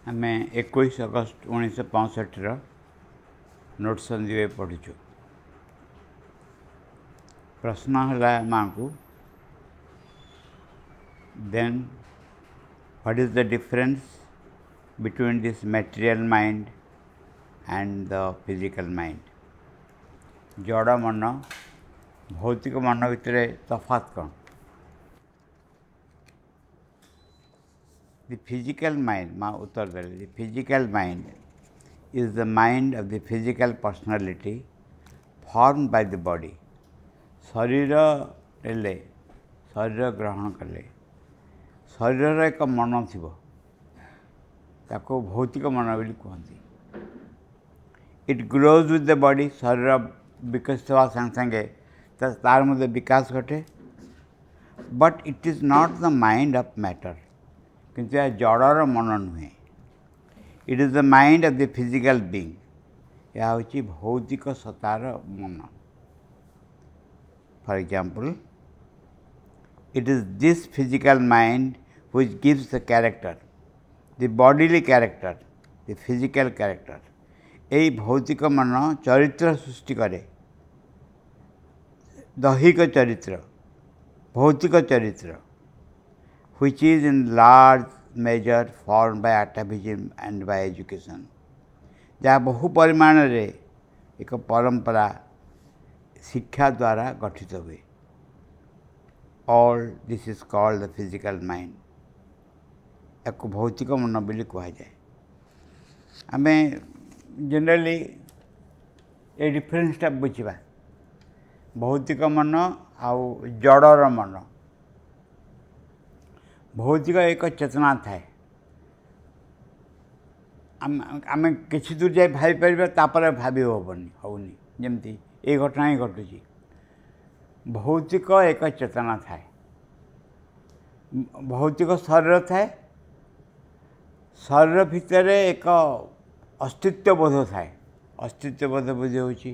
ଆମେ 21 ଅଗଷ୍ଟ 1965ର ନୋଟ୍ସ ଅନ୍ the we ପଢ଼ୁଛୁ। ପ୍ରଶ୍ନ ହେଲା ମାଆଙ୍କୁ, then what is the difference between this material mind and the physical mind? ଜଡ଼ ମନ ଭୌତିକ ମନ ଭିତରେ ତଫାତ୍ କ'ଣ? The physical mind, ମା ଉତ୍ତର ଦେଲେ, the physical mind is the mind of the physical personality formed by the body. ଶରୀର ନେଲେ, ଶରୀର ଗ୍ରହଣ କଲେ, ଶରୀରର ଏକ ମନ ଥିବ, ତାକୁ ଭୌତିକ ମନ ବୋଲି କୁହନ୍ତି। It grows with the body. ଶରୀର ବିକଶିତ ହେବା ସାଙ୍ଗେ ସାଙ୍ଗେ ତାର ମଧ୍ୟ ବିକାଶ ଘଟେ। But it is not the mind of matter. କିନ୍ତୁ ଏହା ଜଡ଼ର ମନ ନୁହେଁ। It is the mind of the physical being. ଏହା ହେଉଛି ଭୌତିକ ସତ୍ତାର ମନ। For example, it is this physical mind which gives the character, the bodily character, the physical character. ଏଇ ଭୌତିକ ମନ ଚରିତ୍ର ସୃଷ୍ଟି କରେ, ଦୈହିକ ଚରିତ୍ର, ଭୌତିକ ଚରିତ୍ର, which is in large measure formed by atavism and by education. ଯାହା ବହୁ ପରିମାଣରେ ଏକ ପରମ୍ପରା ଶିକ୍ଷା ଦ୍ୱାରା ଗଠିତ ହୁଏ। All this is called the physical mind. ୟାକୁ ଭୌତିକ ମନ ବୋଲି କୁହାଯାଏ। ଆମେ ଜେନେରାଲି ଏ ଡିଫରେନ୍ସଟା ବୁଝିବା, ଭୌତିକ ମନ ଆଉ ଜଡ଼ର ମନ। ଭୌତିକ ଏକ ଚେତନା ଥାଏ, ଆମେ କିଛି ଦୂର ଯାଇ ଭାବିପାରିବା, ତାପରେ ଭାବି ହେବନି, ହେଉନି। ଯେମିତି ଏଇ ଘଟଣା ହିଁ ଘଟୁଛି। ଭୌତିକ ଏକ ଚେତନା ଥାଏ, ଭୌତିକ ଶରୀର ଥାଏ, ଶରୀର ଭିତରେ ଏକ ଅସ୍ତିତ୍ୱ ବୋଧ ଥାଏ। ଅସ୍ତିତ୍ୱ ବୋଧ ବୁଝି ହେଉଛି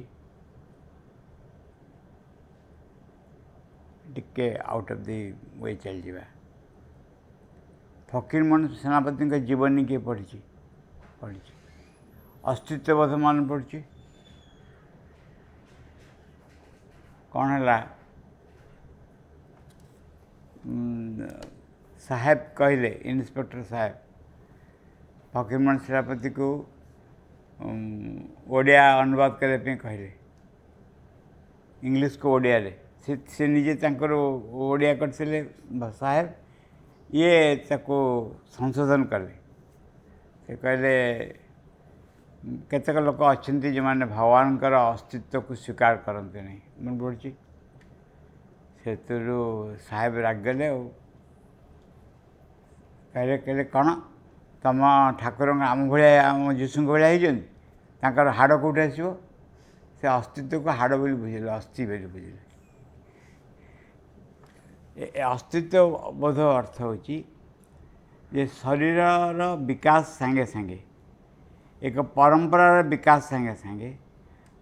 ଟିକେ ଆଉଟ୍ ଅଫ୍ the we ଚାଲିଯିବା। ଫକୀରମୋହନ ସେନାପତିଙ୍କ ଜୀବନୀ କିଏ ପଢ଼ିଛି? ପଢ଼ିଛି। ଅସ୍ତିତ୍ୱ ବୋଧ ମନେ ପଡ଼ୁଛି? କ'ଣ ହେଲା? ସାହେବ କହିଲେ, ଇନ୍ସପେକ୍ଟର ସାହେବ ଫକୀରମୋହନ ସେନାପତିକୁ ଓଡ଼ିଆ ଅନୁବାଦ କରିବା ପାଇଁ କହିଲେ, ଇଂଲିଶକୁ ଓଡ଼ିଆରେ। ସେ ନିଜେ ତାଙ୍କର ଓଡ଼ିଆ କରିଥିଲେ ସାହେବ, ଇଏ ତାକୁ ସଂଶୋଧନ କଲେ। ସେ କହିଲେ କେତେକ ଲୋକ ଅଛନ୍ତି ଯେଉଁମାନେ ଭଗବାନଙ୍କର ଅସ୍ତିତ୍ୱକୁ ସ୍ୱୀକାର କରନ୍ତି ନାହିଁ। ମନେ ପଡ଼ୁଛି? ସେଥିରୁ ସାହେବ ରାଗିଗଲେ ଆଉ କହିଲେ କ'ଣ ତମ ଠାକୁରଙ୍କ ଆମ ଭଳିଆ, ଆମ ଯୀଶୁଙ୍କ ଭଳିଆ ହେଇଛନ୍ତି, ତାଙ୍କର ହାଡ଼ କେଉଁଠି ଆସିବ? ସେ ଅସ୍ତିତ୍ୱକୁ ହାଡ଼ ବୋଲି ବୁଝିଲେ, ଅସ୍ଥି ବୋଲି ବୁଝିଲେ। ଅସ୍ତିତ୍ୱ ବୋଧ ଅର୍ଥ ହେଉଛି ଯେ ଶରୀରର ବିକାଶ ସାଙ୍ଗେ ସାଙ୍ଗେ, ଏକ ପରମ୍ପରାର ବିକାଶ ସାଙ୍ଗେ ସାଙ୍ଗେ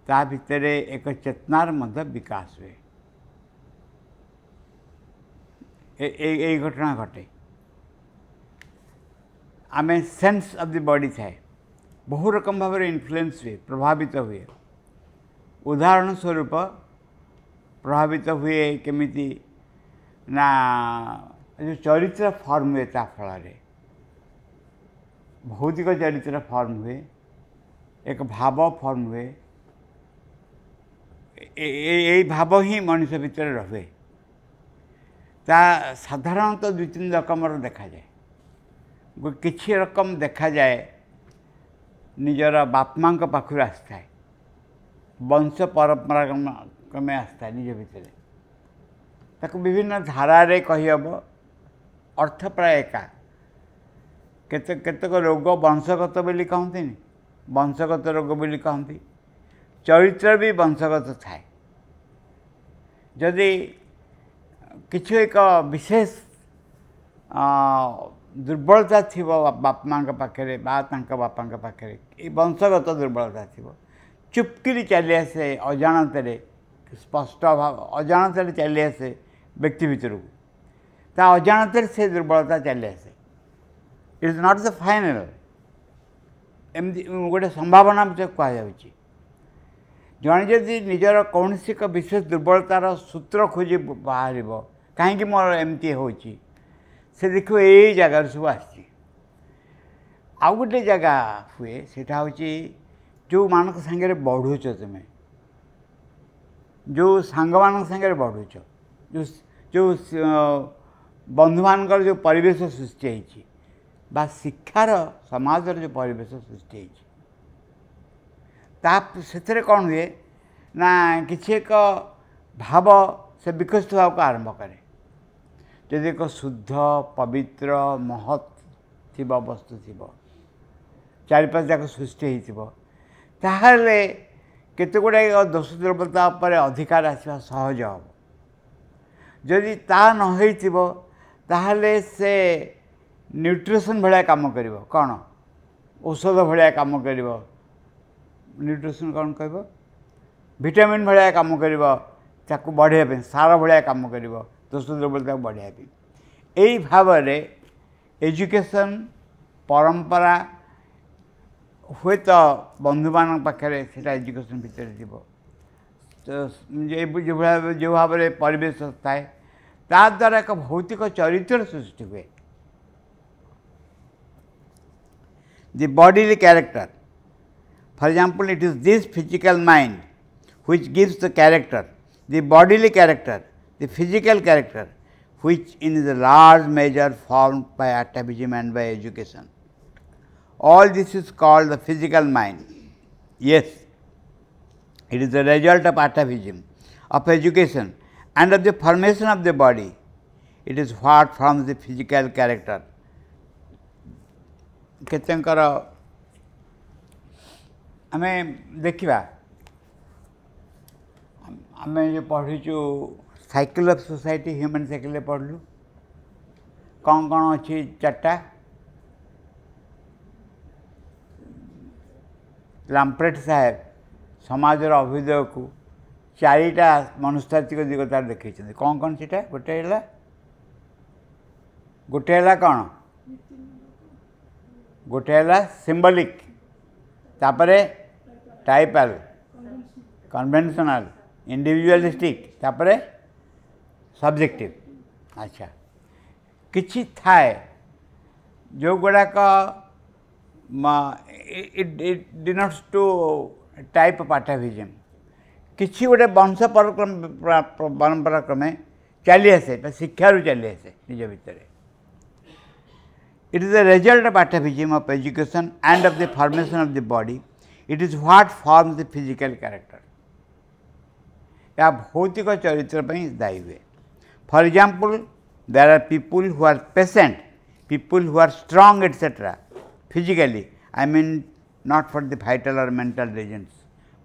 ତା ଭିତରେ ଏକ ଚେତନାର ମଧ୍ୟ ବିକାଶ ହୁଏ। ଏଇ ଘଟଣା ଘଟେ। ଆମେ ସେନ୍ସ ଅଫ୍ the body ଥାଏ, ବହୁ ରକମ ଭାବରେ ଇନଫ୍ଲୁଏନ୍ସ ହୁଏ, ପ୍ରଭାବିତ ହୁଏ। ଉଦାହରଣ ସ୍ୱରୂପ ପ୍ରଭାବିତ ହୁଏ କେମିତି ନା ଯେଉଁ ଚରିତ୍ର ଫର୍ମ ହୁଏ ତା ଫଳରେ ଭୌତିକ ଚରିତ୍ର ଫର୍ମ ହୁଏ, ଏକ ଭାବ ଫର୍ମ ହୁଏ। ଏଇ ଭାବ ହିଁ ମଣିଷ ଭିତରେ ରହେ। ତା ସାଧାରଣତଃ ଦୁଇ ତିନି ରକମର ଦେଖାଯାଏ। କିଛି ରକମ ଦେଖାଯାଏ ନିଜର ବାପା ମାଆଙ୍କ ପାଖରୁ ଆସିଥାଏ, ବଂଶ ପରମ୍ପରା କ୍ରମେ ଆସିଥାଏ ନିଜ ଭିତରେ। ତାକୁ ବିଭିନ୍ନ ଧାରାରେ କହିହେବ, ଅର୍ଥ ପ୍ରାୟ ଏକା। କେତେକ ରୋଗ ବଂଶଗତ ବୋଲି କହନ୍ତିନି, ବଂଶଗତ ରୋଗ ବୋଲି କହନ୍ତି। ଚରିତ୍ର ବି ବଂଶଗତ ଥାଏ। ଯଦି କିଛି ଏକ ବିଶେଷ ଦୁର୍ବଳତା ଥିବ ବାପା ମାଆଙ୍କ ପାଖରେ ବା ତାଙ୍କ ବାପାଙ୍କ ପାଖରେ, ଏ ବଂଶଗତ ଦୁର୍ବଳତା ଥିବ, ଚୁପକିରି ଚାଲି ଆସେ ଅଜାଣତରେ, ସ୍ପଷ୍ଟ ଭାବ ଅଜାଣତରେ ଚାଲି ଆସେ ବ୍ୟକ୍ତି ଭିତରକୁ। ତା ଅଜାଣତରେ ସେ ଦୁର୍ବଳତା ଚାଲି ଆସେ। It is not the final. ଏମିତି ଗୋଟେ ସମ୍ଭାବନା ମଧ୍ୟ କୁହାଯାଉଛି। ଜଣେ ଯଦି ନିଜର କୌଣସି ଏକ ବିଶେଷ ଦୁର୍ବଳତାର ସୂତ୍ର ଖୋଜି ବାହାରିବ, କାହିଁକି ମୋର ଏମିତି ହେଉଛି, ସେ ଦେଖିବ ଏଇ ଜାଗାରୁ ସବୁ ଆସିଛି। ଆଉ ଗୋଟେ ଜାଗା ହୁଏ, ସେଇଟା ହେଉଛି ଯେଉଁମାନଙ୍କ ସାଙ୍ଗରେ ବଢ଼ୁଛ ତୁମେ, ଯେଉଁ ସାଙ୍ଗମାନଙ୍କ ସାଙ୍ଗରେ ବଢ଼ୁଛ, ଯେଉଁ ଯେଉଁ ବନ୍ଧୁମାନଙ୍କର ଯେଉଁ ପରିବେଶ ସୃଷ୍ଟି ହେଇଛି ବା ଶିକ୍ଷାର ସମାଜର ଯେଉଁ ପରିବେଶ ସୃଷ୍ଟି ହେଇଛି, ତା ସେଥିରେ କ'ଣ ହୁଏ ନା କିଛି ଏକ ଭାବ ସେ ବିକଶିତ ହେବାକୁ ଆରମ୍ଭ କରେ। ଯଦି ଏକ ଶୁଦ୍ଧ ପବିତ୍ର ମହତ୍ ଥିବ, ବସ୍ତୁ ଥିବ, ଚାରିପାଶ ଯାକ ସୃଷ୍ଟି ହେଇଥିବ, ତାହେଲେ କେତେ ଗୁଡ଼ାଏ ଦୋଷ ଦୁର୍ବଳତା ଉପରେ ଅଧିକାର ଆସିବା ସହଜ ହେବ। ଯଦି ତା ନ ହେଇଥିବ ତାହେଲେ ସେ ନ୍ୟୁଟ୍ରିସନ୍ ଭଳିଆ କାମ କରିବ। କ'ଣ ଔଷଧ ଭଳିଆ କାମ କରିବ, ନ୍ୟୁଟ୍ରିସନ୍ କ'ଣ କହିବ, ଭିଟାମିନ୍ ଭଳିଆ କାମ କରିବ, ତାକୁ ବଢ଼େଇବା ପାଇଁ ସାର ଭଳିଆ କାମ କରିବ, ଦୋଷ ଦୁର୍ବଳତାକୁ ବଢ଼େଇବା ପାଇଁ। ଏଇ ଭାବରେ ଏଜୁକେସନ୍ ପରମ୍ପରା ହୁଏତ ବନ୍ଧୁମାନଙ୍କ ପାଖରେ ସେଇଟା ଏଜୁକେସନ୍ ଭିତରେ ଥିବ, ଯେଉଁ ଭାବରେ ପରିବେଶ ଥାଏ ତା ଦ୍ୱାରା ଏକ ଭୌତିକ ଚରିତ୍ର ସୃଷ୍ଟି ହୁଏ। The bodily character. For example, it is this physical mind which gives the character, the bodily character, the physical character, which in the large measure formed by atavism and by education. All this is called the physical mind. Yes, it is the result of atavism, of education and of the formation of the body. It is what forms the physical character. କେତେଙ୍କର ଆମେ ଦେଖିବା, ଆମେ ଯେଉଁ ପଢ଼ିଛୁ cycle of society, human ସାଇକେଲ୍ରେ ପଢ଼ିଲୁ କ'ଣ କ'ଣ ଅଛି, ଚାରିଟା। ଲାମ୍ପ୍ରେଟ୍ ସାହେବ ସମାଜର ଅଭ୍ୟୁଦୟକୁ ଚାରିଟା ମନସ୍ତାତ୍ତ୍ୱିକ ଦିଗ ତାର ଦେଖେଇଛନ୍ତି। କ'ଣ କ'ଣ ସେଇଟା? ଗୋଟେ ହେଲା କ'ଣ? ଗୋଟେ ହେଲା ସିମ୍ବଲିକ୍, ତାପରେ ଟାଇପାଲ୍, କନଭେନସନାଲ୍, ଇଣ୍ଡିଭିଜୁଆଲିଷ୍ଟିକ୍, ତାପରେ ସବଜେକ୍ଟିଭ୍। ଆଚ୍ଛା, କିଛି ଥାଏ ଯେଉଁଗୁଡ଼ାକ it denotes to type of atavism. କିଛି ଗୋଟେ ବଂଶ ପରମ୍ପରା କ୍ରମେ ଚାଲି ଆସେ ବା ଶିକ୍ଷାରୁ ଚାଲି ଆସେ ନିଜ ଭିତରେ। It is the result of atavism, of education and of the formation of the body. It is what forms the physical character. ଏହା ଭୌତିକ ଚରିତ୍ର ପାଇଁ ଦାୟୀ ହୁଏ। For example, there are people who are patient, people who are strong, etcetera, physically. I mean not for the vital or mental reasons,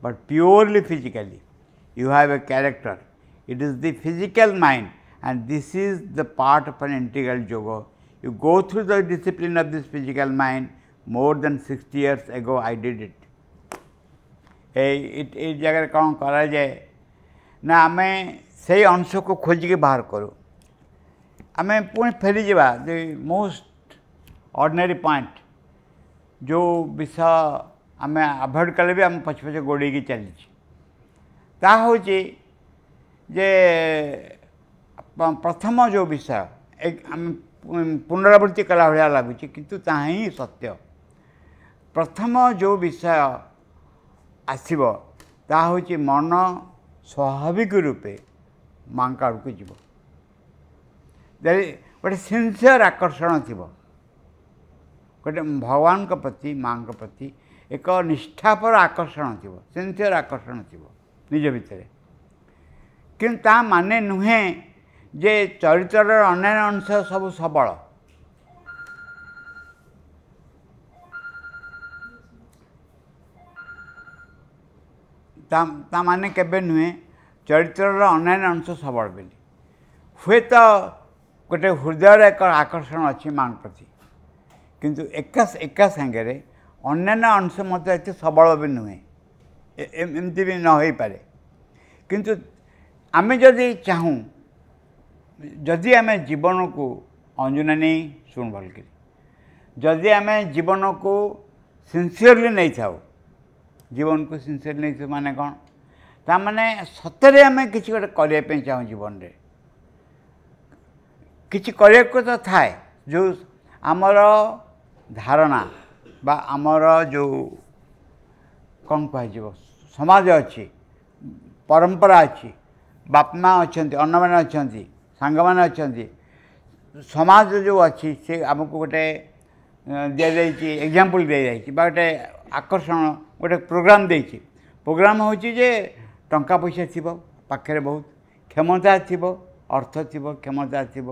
but purely physically. You have a character. It is the physical mind, and this is the part of an integral yoga. You go through the discipline of this physical mind. More than 60 years ago I did it. ଏଇ ଜାଗାରେ କ'ଣ କରାଯାଏ ନା ଆମେ ସେଇ ଅଂଶକୁ ଖୋଜିକି ବାହାର କରୁ। ଆମେ ପୁଣି ଫେରିଯିବା ଦି ମୋଷ୍ଟ ଅର୍ଡ଼ିନାରୀ ପଏଣ୍ଟ, ଯେଉଁ ବିଷୟ ଆମେ ଆଭଏଡ଼ କଲେ ବି ଆମ ପଛେ ପଛେ ଗୋଡ଼େଇକି ଚାଲିଛି, ତାହା ହେଉଛି ଯେ ପ୍ରଥମ ଯେଉଁ ବିଷୟ ଆମେ ପୁନରାବୃତ୍ତି କଲା ଭଳିଆ ଲାଗୁଛି, କିନ୍ତୁ ତାହା ହିଁ ସତ୍ୟ। ପ୍ରଥମ ଯେଉଁ ବିଷୟ ଆସିବ ତାହା ହେଉଛି ମନ ସ୍ୱାଭାବିକ ରୂପେ ମାଙ୍କ ଆଡ଼କୁ ଯିବ। ଗୋଟେ ସିନସିୟର ଆକର୍ଷଣ ଥିବ, ଗୋଟେ ଭଗବାନଙ୍କ ପ୍ରତି, ମାଙ୍କ ପ୍ରତି ଏକ ନିଷ୍ଠାପର ଆକର୍ଷଣ ଥିବ, ସିନସିୟର ଆକର୍ଷଣ ଥିବ ନିଜ ଭିତରେ। କିନ୍ତୁ ତା ମାନେ ନୁହେଁ ଯେ ଚରିତ୍ରର ଅନ୍ୟାନ୍ୟ ଅଂଶ ସବୁ ସବଳ। ତା ମାନେ କେବେ ନୁହେଁ ଚରିତ୍ରର ଅନ୍ୟାନ୍ୟ ଅଂଶ ସବଳ ବୋଲି। ହୁଏତ ଗୋଟେ ହୃଦୟର ଏକ ଆକର୍ଷଣ ଅଛି ମାଙ୍କ ପ୍ରତି, କିନ୍ତୁ ଏକା ସାଙ୍ଗରେ ଅନ୍ୟାନ୍ୟ ଅଂଶ ମଧ୍ୟ ଏତେ ସବଳ ବି ନୁହେଁ, ଏମିତି ବି ନ ହୋଇପାରେ। କିନ୍ତୁ ଆମେ ଯଦି ଚାହୁଁ, ଯଦି ଆମେ ଜୀବନକୁ ଅଞ୍ଜନା ନେଇ ଶୁଣ ଭଲକରି, ଯଦି ଆମେ ଜୀବନକୁ ସିନସିୟରଲି ନେଇଥାଉ, ଜୀବନକୁ ସିନସିୟରଲି ନେଇଥାଉ ମାନେ କ'ଣ? ତାମାନେ ସତରେ ଆମେ କିଛି ଗୋଟେ କରିବା ପାଇଁ ଚାହୁଁ, ଜୀବନରେ କିଛି କରିବାକୁ ତ ଥାଏ। ଯେଉଁ ଆମର ଧାରଣା ବା ଆମର ଯେଉଁ କ'ଣ କୁହାଯିବ, ସମାଜ ଅଛି, ପରମ୍ପରା ଅଛି, ବାପା ମା ଅଛନ୍ତି, ଅନ୍ୟମାନେ ଅଛନ୍ତି, ସାଙ୍ଗମାନେ ଅଛନ୍ତି, ସମାଜ ଯେଉଁ ଅଛି ସେ ଆମକୁ ଗୋଟେ ଦିଆଯାଇଛି, ଏକ୍ଜାମ୍ପଲ୍ ଦିଆଯାଇଛି ବା ଗୋଟେ ଆକର୍ଷଣ, ଗୋଟେ ପ୍ରୋଗ୍ରାମ୍ ଦେଇଛି। ପ୍ରୋଗ୍ରାମ୍ ହେଉଛି ଯେ ଟଙ୍କା ପଇସା ଥିବ ପାଖରେ, ବହୁତ କ୍ଷମତା ଥିବ, ଅର୍ଥ ଥିବ, କ୍ଷମତା ଥିବ,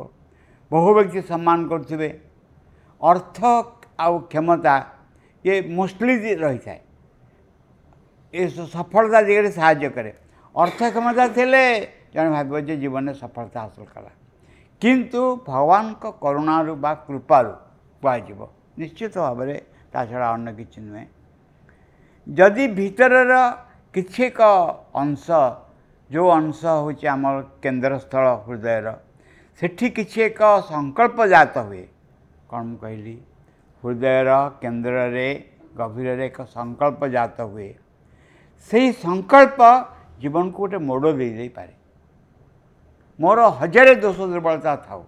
ବହୁ ବ୍ୟକ୍ତି ସମ୍ମାନ କରୁଥିବେ। ଅର୍ଥ ଆଉ କ୍ଷମତା ଇଏ ମୋଷ୍ଟଲି ରହିଥାଏ, ଏ ସଫଳତା ଦିଗରେ ସାହାଯ୍ୟ କରେ। ଅର୍ଥ କ୍ଷମତା ଥିଲେ ଜଣେ ଭାବିବ ଯେ ଜୀବନରେ ସଫଳତା ହାସଲ କଲା, କିନ୍ତୁ ଭଗବାନଙ୍କ କରୁଣାରୁ ବା କୃପାରୁ କୁହାଯିବ ନିଶ୍ଚିତ ଭାବରେ, ତା ଛଡ଼ା ଅନ୍ୟ କିଛି ନୁହେଁ। ଯଦି ଭିତରର କିଛି ଏକ ଅଂଶ, ଯେଉଁ ଅଂଶ ହେଉଛି ଆମର କେନ୍ଦ୍ରସ୍ଥଳ ହୃଦୟର, ସେଠି କିଛି ଏକ ସଂକଳ୍ପ ଜାତ ହୁଏ। କ'ଣ ମୁଁ କହିଲି? ହୃଦୟର କେନ୍ଦ୍ରରେ ଗଭୀରରେ ଏକ ସଂକଳ୍ପ ଜାତ ହୁଏ। ସେଇ ସଂକଳ୍ପ ଜୀବନକୁ ଗୋଟେ ମୋଡ଼ ଦେଇଦେଇପାରେ। ମୋର ହଜାରେ ଦୋଷ ଦୁର୍ବଳତା ଥାଉ,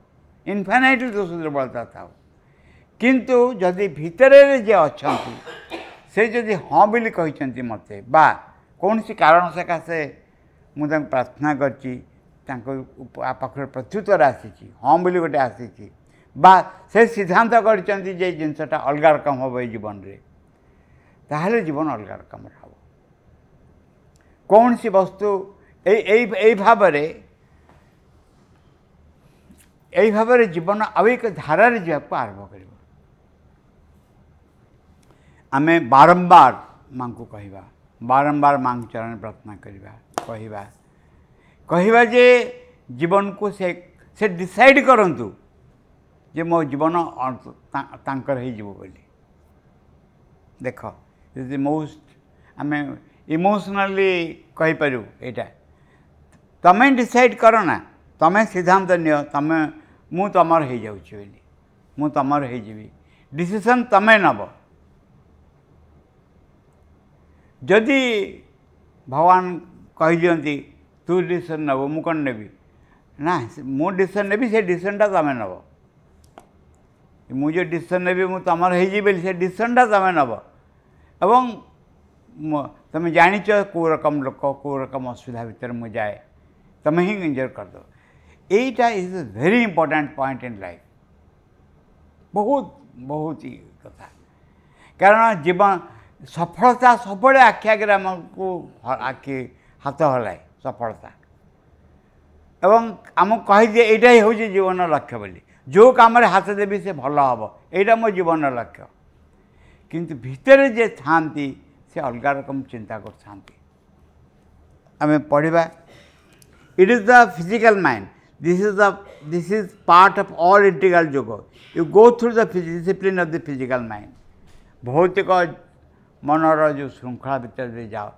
ଇନଫାଇନାଇଟ୍ ଦୋଷ ଦୁର୍ବଳତା ଥାଉ, କିନ୍ତୁ ଯଦି ଭିତରେ ଯିଏ ଅଛନ୍ତି ସେ ଯଦି ହଁ ବୋଲି କହିଛନ୍ତି ମୋତେ, ବା କୌଣସି କାରଣ ସକାଶେ ମୁଁ ତାଙ୍କୁ ପ୍ରାର୍ଥନା କରିଛି, ତାଙ୍କ ପାଖରେ ପ୍ରତ୍ୟୁତ୍ତର ଆସିଛି, ହଁ ବୋଲି ଗୋଟେ ଆସିଛି, ବା ସେ ସିଦ୍ଧାନ୍ତ କରିଛନ୍ତି ଯେ ଜିନିଷଟା ଅଲଗା ରକମ ହେବ ଏଇ ଜୀବନରେ, ତାହେଲେ ଜୀବନ ଅଲଗା ରକମର ହେବ। କୌଣସି ବସ୍ତୁ ଏଇ ଏଇ ଏଇ ଭାବରେ ଏଇ ଭାବରେ ଜୀବନ ଆଉ ଏକ ଧାରାରେ ଯିବାକୁ ଆରମ୍ଭ କରିବ। ଆମେ ବାରମ୍ବାର ମାଆଙ୍କୁ କହିବା, ବାରମ୍ବାର ମାଆଙ୍କ ଚରଣରେ ପ୍ରାର୍ଥନା କରିବା, କହିବା କହିବା ଯେ ଜୀବନକୁ ସେ ଡିସାଇଡ଼୍ କରନ୍ତୁ ଯେ ମୋ ଜୀବନ ତାଙ୍କର ହେଇଯିବ ବୋଲି। ଦେଖ, is the most, ଆମେ ଇମୋସନାଲି କହିପାରିବୁ ଏଇଟା। ତମେ ଡିସାଇଡ଼୍ କର ନା, ତମେ ସିଦ୍ଧାନ୍ତ ନିଅ, ତମେ ମୁଁ ତମର ହେଇଯାଉଛି ବୋଲି, ମୁଁ ତମର ହେଇଯିବି, ଡିସିସନ୍ ତମେ ନେବ। ଯଦି ଭଗବାନ କହିଦିଅନ୍ତି ତୁ ଡିସିସନ୍ ନେବୁ, ମୁଁ କ'ଣ ନେବି? ନା, ମୁଁ ଡିସିସନ୍ ନେବି, ସେ ଡିସିସନ୍ଟା ତମେ ନେବ। ମୁଁ ଯେଉଁ ଡିସିସନ୍ ନେବି ମୁଁ ତମର ହେଇଯିବି ବୋଲି, ସେ ଡିସିସନ୍ଟା ତମେ ନେବ। ଏବଂ ତମେ ଜାଣିଛ କେଉଁ ରକମ ଲୋକ, କେଉଁ ରକମ ଅସୁବିଧା ଭିତରେ ମୁଁ ଯାଏ, ତମେ ହିଁ ଏନ୍ଜୟ କରିଦେବ। ଏଇଟା is a very important point in life. ବହୁତ ବହୁତ କଥା। କାରଣ ଜୀବନ ସଫଳତା ସବୁବେଳେ ଆଖି ଆଗରେ ଆମକୁ ଆଖି ହାତ ହଲାଏ ସଫଳତା, ଏବଂ ଆମକୁ କହିଦିଏ ଏଇଟା ହିଁ ହେଉଛି ଜୀବନର ଲକ୍ଷ୍ୟ ବୋଲି। ଯେଉଁ କାମରେ ହାତ ଦେବି ସେ ଭଲ ହେବ, ଏଇଟା ମୋ ଜୀବନର ଲକ୍ଷ୍ୟ। କିନ୍ତୁ ଭିତରେ ଯିଏ ଥାଆନ୍ତି ସେ ଅଲଗା ରକମ ଚିନ୍ତା କରୁଥାନ୍ତି। ଆମେ ପଢ଼ିବା, it is the physical mind. This is part of all integral yoga. You go through the discipline of the physical mind. ଭୌତିକ ମନର ଯେଉଁ ଶୃଙ୍ଖଳା ଭିତରେ ଯାଅ,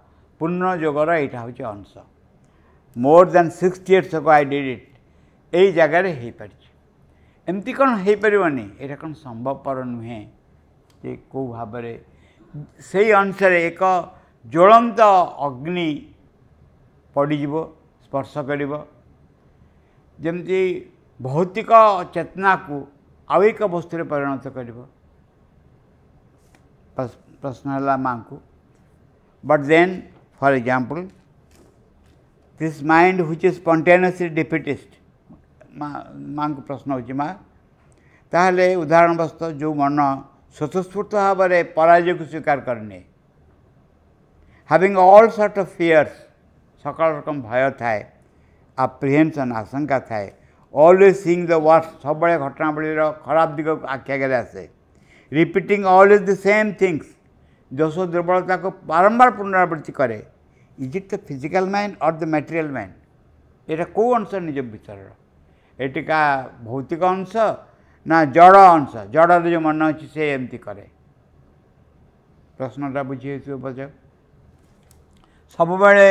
ପୂର୍ଣ୍ଣ ଯୋଗର ଏଇଟା ହେଉଛି ଅଂଶ। More than 60 years ago I did it. ଏଇ ଜାଗାରେ ହେଇପାରିଛି। ଏମିତି କ'ଣ ହେଇପାରିବନି? ଏଇଟା କ'ଣ ସମ୍ଭବପର ନୁହେଁ ଯେ କେଉଁ ଭାବରେ ସେଇ ଅଂଶରେ ଏକ ଜ୍ୱଳନ୍ତ ଅଗ୍ନି ପଡ଼ିଯିବ, ସ୍ପର୍ଶ କରିବ, ଯେମିତି ଭୌତିକ ଚେତନାକୁ ଆଉ ଏକ ବସ୍ତୁରେ ପରିଣତ କରିବ। ପ୍ରଶ୍ନ ହେଲା ମାଆଙ୍କୁ, but then for example this mind which is spontaneously defeatist. ମାଆଙ୍କୁ ପ୍ରଶ୍ନ ହେଉଛି, ମା ତାହେଲେ ଉଦାହରଣ ବସ୍ତୁ ଯେଉଁ ମନ ସ୍ୱତଃସ୍ଫୂର୍ତ୍ତ ଭାବରେ ପରାଜୟକୁ ସ୍ୱୀକାର କରିନିଏ, having all sort of fears, ସକାଳ ରକମ ଭୟ ଥାଏ, ଆପ୍ରିହେନ୍ସନ୍ ଆଶଙ୍କା ଥାଏ, ଅଲୱେଜ୍ ସିଇଂ ଦ ୱାର୍ଷ୍ଟ, ସବୁବେଳେ ଘଟଣାବଳୀର ଖରାପ ଦିଗକୁ ଆଖି ଆଗରେ ଆସେ, repeating always the same things, ଦୋଷ ଦୁର୍ବଳତାକୁ ବାରମ୍ବାର ପୁନରାବୃତ୍ତି କରେ। Is it the physical mind or the material mind? ଏଇଟା କେଉଁ ଅଂଶ ନିଜ ଭିତରର? ଏଟିକା ଭୌତିକ ଅଂଶ ନା ଜଡ଼ ଅଂଶ? ଜଡ଼ରେ ଯେଉଁ ମନ ଅଛି ସେ ଏମିତି କରେ। ପ୍ରଶ୍ନଟା ବୁଝି ହେଇଥିବ ବୋଧେ। ସବୁବେଳେ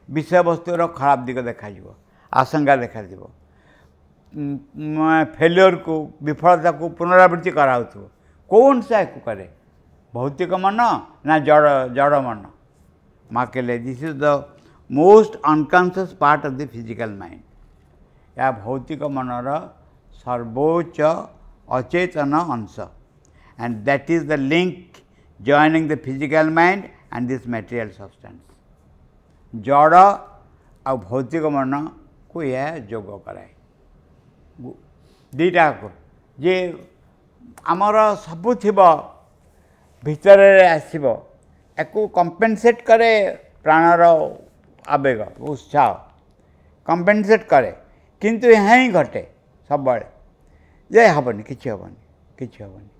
ବିଷୟବସ୍ତୁର ଖରାପ ଦିଗ ଦେଖାଯିବ, ଆଶଙ୍କା ଦେଖାଯିବ, ଫେଲିଓରକୁ ବିଫଳତାକୁ ପୁନରାବୃତ୍ତି କରାହେଉଥିବ। କେଉଁ ଅଂଶ ଏହାକୁ କରେ? ଭୌତିକ ମନ ନା ଜଡ଼ ଜଡ଼ ମନ? ମା କହିଲେ, this is the most unconscious part of the physical mind. ଏହା ଭୌତିକ ମନର ସର୍ବୋଚ୍ଚ ଅଚେତନ ଅଂଶ। And that is the link joining the physical mind and this material substance. ଜଡ଼ ଆଉ ଭୌତିକ ମନକୁ ଏହା ଯୋଗ କରାଏ ଦୁଇଟାକୁ। ଯେ ଆମର ସବୁ ଥିବ, ଭିତରେ ଆସିବ, ୟାକୁ କମ୍ପେନସେଟ୍ କରେ ପ୍ରାଣର ଆବେଗ, ଉତ୍ସାହ କମ୍ପେନସେଟ୍ କରେ। କିନ୍ତୁ ଏହା ହିଁ ଘଟେ ସବୁବେଳେ ଯେ ହେବନି, କିଛି ହେବନି, କିଛି ହେବନି।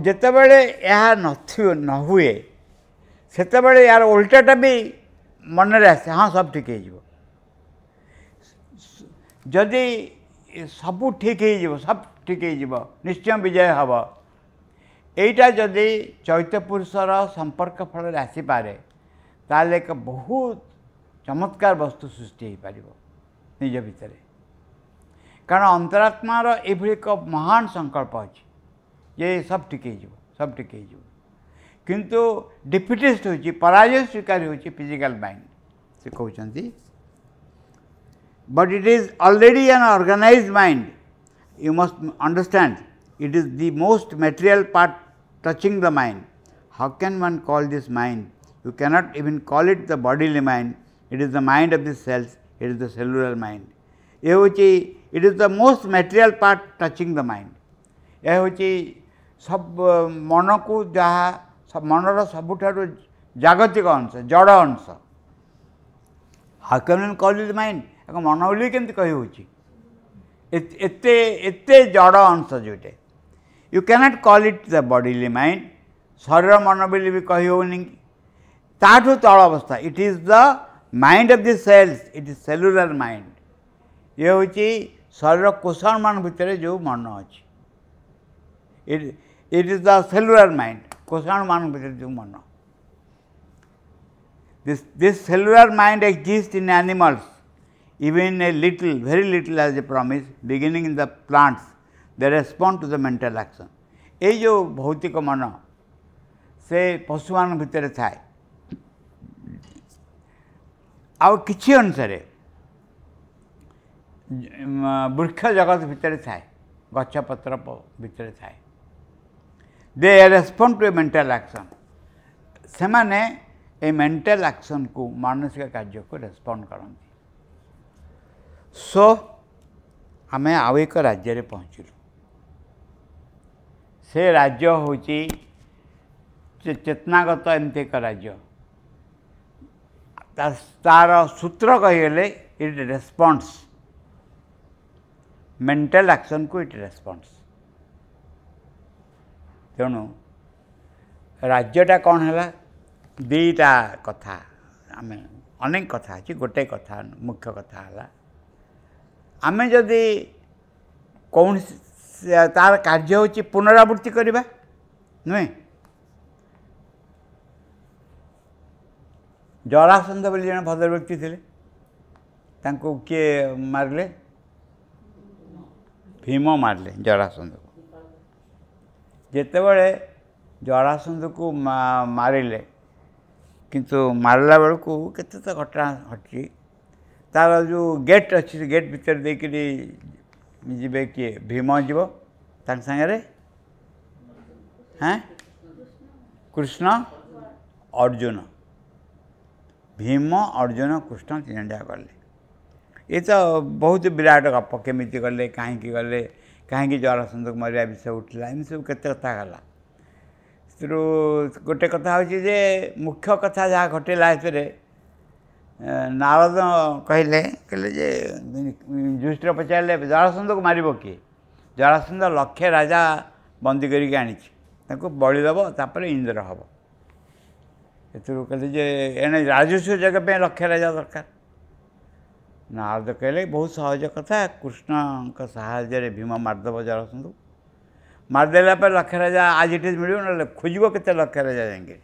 ଯେତେବେଳେ ଏହା ନଥିବ, ନ ହୁଏ, ସେତେବେଳେ ଏହାର ଓଲଟାଟା ବି ମନରେ ଆସେ, ହଁ ସବୁ ଠିକ୍ ହେଇଯିବ। ଯଦି ସବୁ ଠିକ୍ ହେଇଯିବ, ସବୁ ଠିକ୍ ହେଇଯିବ, ନିଶ୍ଚୟ ବିଜୟ ହେବ। ଏଇଟା ଯଦି ଚୈତ୍ୟ ପୁରୁଷର ସମ୍ପର୍କ ଫଳରେ ଆସିପାରେ, ତାହେଲେ ଏକ ବହୁତ ଚମତ୍କାର ବସ୍ତୁ ସୃଷ୍ଟି ହୋଇପାରିବ ନିଜ ଭିତରେ। କାରଣ ଅନ୍ତରାତ୍ମାର ଏଭଳି ଏକ ମହାନ ସଂକଳ୍ପ ଅଛି ଯେ ସବୁ ଠିକ୍ ହେଇଯିବ, ସବୁ ଠିକ୍ ହେଇଯିବ। କିନ୍ତୁ ଡିଫିଟିଷ୍ଟ ହେଉଛି, ପରାଜୟ ସ୍ୱୀକାର ହେଉଛି ଫିଜିକାଲ ମାଇଣ୍ଡ। ସେ କହୁଛନ୍ତି, but it is already an organized mind. You must understand, it is the most material part touching the mind. How can one call this mind? You cannot even call it the bodily mind. It is the mind of the cells, it is the cellular mind. ଏ ହେଉଛି, it is the most material part touching the mind. ଏହା ହେଉଛି ସବୁ ମନକୁ ଯାହା ମନର ସବୁଠାରୁ ଜାଗତିକ ଅଂଶ, ଜଡ଼ ଅଂଶ। How can one call it mind? ଏକ ମନ ବୋଲି କେମିତି କହି ହେଉଛି? ଏତେ ଏତେ ଜଡ଼ ଅଂଶ ଯେଉଁଟା, you can't call it the bodily mind. ଶରୀର ମନ ବୋଲି ବି କହି ହେଉନି, ତାଠୁ ତଳ ଅବସ୍ଥା। It is the mind of the cells, it is cellular mind. ଇଏ ହେଉଛି ଶରୀର କୋଷାଣୁମାନ ଭିତରେ ଯେଉଁ ମନ ଅଛି। It is the cellular mind, କୋଷାଣୁମାନ ଭିତରେ ଯେଉଁ ମନ। This cellular mind exists in animals, even a little, very little as a promise, beginning in the plants, they respond to the mental action. ଏଇ ଯେଉଁ ଭୌତିକ ମନ ସେ ପଶୁମାନଙ୍କ ଭିତରେ ଥାଏ, ଆଉ କିଛି ଅନୁସାରେ ବୃକ୍ଷ ଜଗତ ଭିତରେ ଥାଏ, ଗଛପତ୍ର ଭିତରେ ଥାଏ। They respond to a mental action. ସେମାନେ ଏଇ ମେଣ୍ଟାଲ ଆକ୍ସନ୍କୁ, ମାନସିକ କାର୍ଯ୍ୟକୁ ରେସ୍ପଣ୍ଡ କରନ୍ତି। ସୋ ଆମେ ଆଉ ଏକ ରାଜ୍ୟରେ ପହଞ୍ଚିଲୁ। ସେ ରାଜ୍ୟ ହେଉଛି ଚେତନାଗତ ଏମିତି ଏକ ରାଜ୍ୟ। ତାର ସୂତ୍ର କହିଗଲେ ଇଟ୍ ରେସ୍ପଣ୍ଡସ୍, ମେଣ୍ଟାଲ ଆକ୍ସନ୍କୁ ଇଟ୍ ରେସ୍ପଣ୍ଡସ୍। ତେଣୁ ରାଜ୍ୟଟା କ'ଣ ହେଲା? ଦୁଇଟା କଥା, ଆମେ ଅନେକ କଥା ଅଛି, ଗୋଟେ କଥା ମୁଖ୍ୟ କଥା ହେଲା, ଆମେ ଯଦି କୌଣସି ତାର କାର୍ଯ୍ୟ ହେଉଛି ପୁନରାବୃତ୍ତି କରିବା ନୁହେଁ। ଜରାସନ୍ଧ ବୋଲି ଜଣେ ଭଦ୍ରବ୍ୟକ୍ତି ଥିଲେ, ତାଙ୍କୁ କିଏ ମାରିଲେ? ଭୀମ ମାରିଲେ ଜରାସନ୍ଧକୁ। ଯେତେବେଳେ ଜରାସନ୍ଧକୁ ମାରିଲେ, କିନ୍ତୁ ମାରିଲା ବେଳକୁ କେତେ ତ ଘଟଣା ଘଟିଛି। ତାର ଯେଉଁ ଗେଟ୍ ଅଛି, ସେ ଗେଟ୍ ଭିତରେ ଦେଇକରି ଯିବେ କିଏ? ଭୀମ ଯିବ ତାଙ୍କ ସାଙ୍ଗରେ, ହଁ, କୃଷ୍ଣ, ଅର୍ଜୁନ। ଭୀମ, ଅର୍ଜୁନ, କୃଷ୍ଣ ତିନି ଜଣ ଯାକ ଗଲେ। ଏ ତ ବହୁତ ବିରାଟ ଗପ, କେମିତି ଗଲେ, କାହିଁକି ଗଲେ, କାହିଁକି ଜରାସନ୍ଧକୁ ମରିବା ବିଷୟ ଉଠିଲା, ଏମିତି ସବୁ କେତେ କଥା ଗଲା। ସେଥିରୁ ଗୋଟେ କଥା ହେଉଛି ଯେ ମୁଖ୍ୟ କଥା ଯାହା ଘଟିଲା ଏଥିରେ, ନାରଦ କହିଲେ ଯେ ଯୁଧିଷ୍ଠିର ପଚାରିଲେ ଜରାସନ୍ଧକୁ ମାରିବ କିଏ? ଜରାସନ୍ଧ ଲକ୍ଷେ ରାଜା ବନ୍ଦୀ କରିକି ଆଣିଛି, ତାଙ୍କୁ ବଳି ଦେବ, ତାପରେ ଇନ୍ଦ୍ର ହେବ। ଏଥିରୁ କହିଲେ ଯେ ଏଣେ ରାଜସ୍ୱ ଯଜ୍ଞ ପାଇଁ ଲକ୍ଷେ ରାଜା ଦରକାର। ନାରଦ କହିଲେ ବହୁତ ସହଜ କଥା, କୃଷ୍ଣଙ୍କ ସାହାଯ୍ୟରେ ଭୀମ ମାରିଦେବ ଜରାସନ୍ଧକୁ। ମାରିଦେଲା ପରେ ଲକ୍ଷେ ରାଜା ଆଜି ଏଠି ମିଳିବ, ନହେଲେ ଖୋଜିବ କେତେ ଲକ୍ଷେ ରାଜା ଯାଇକି।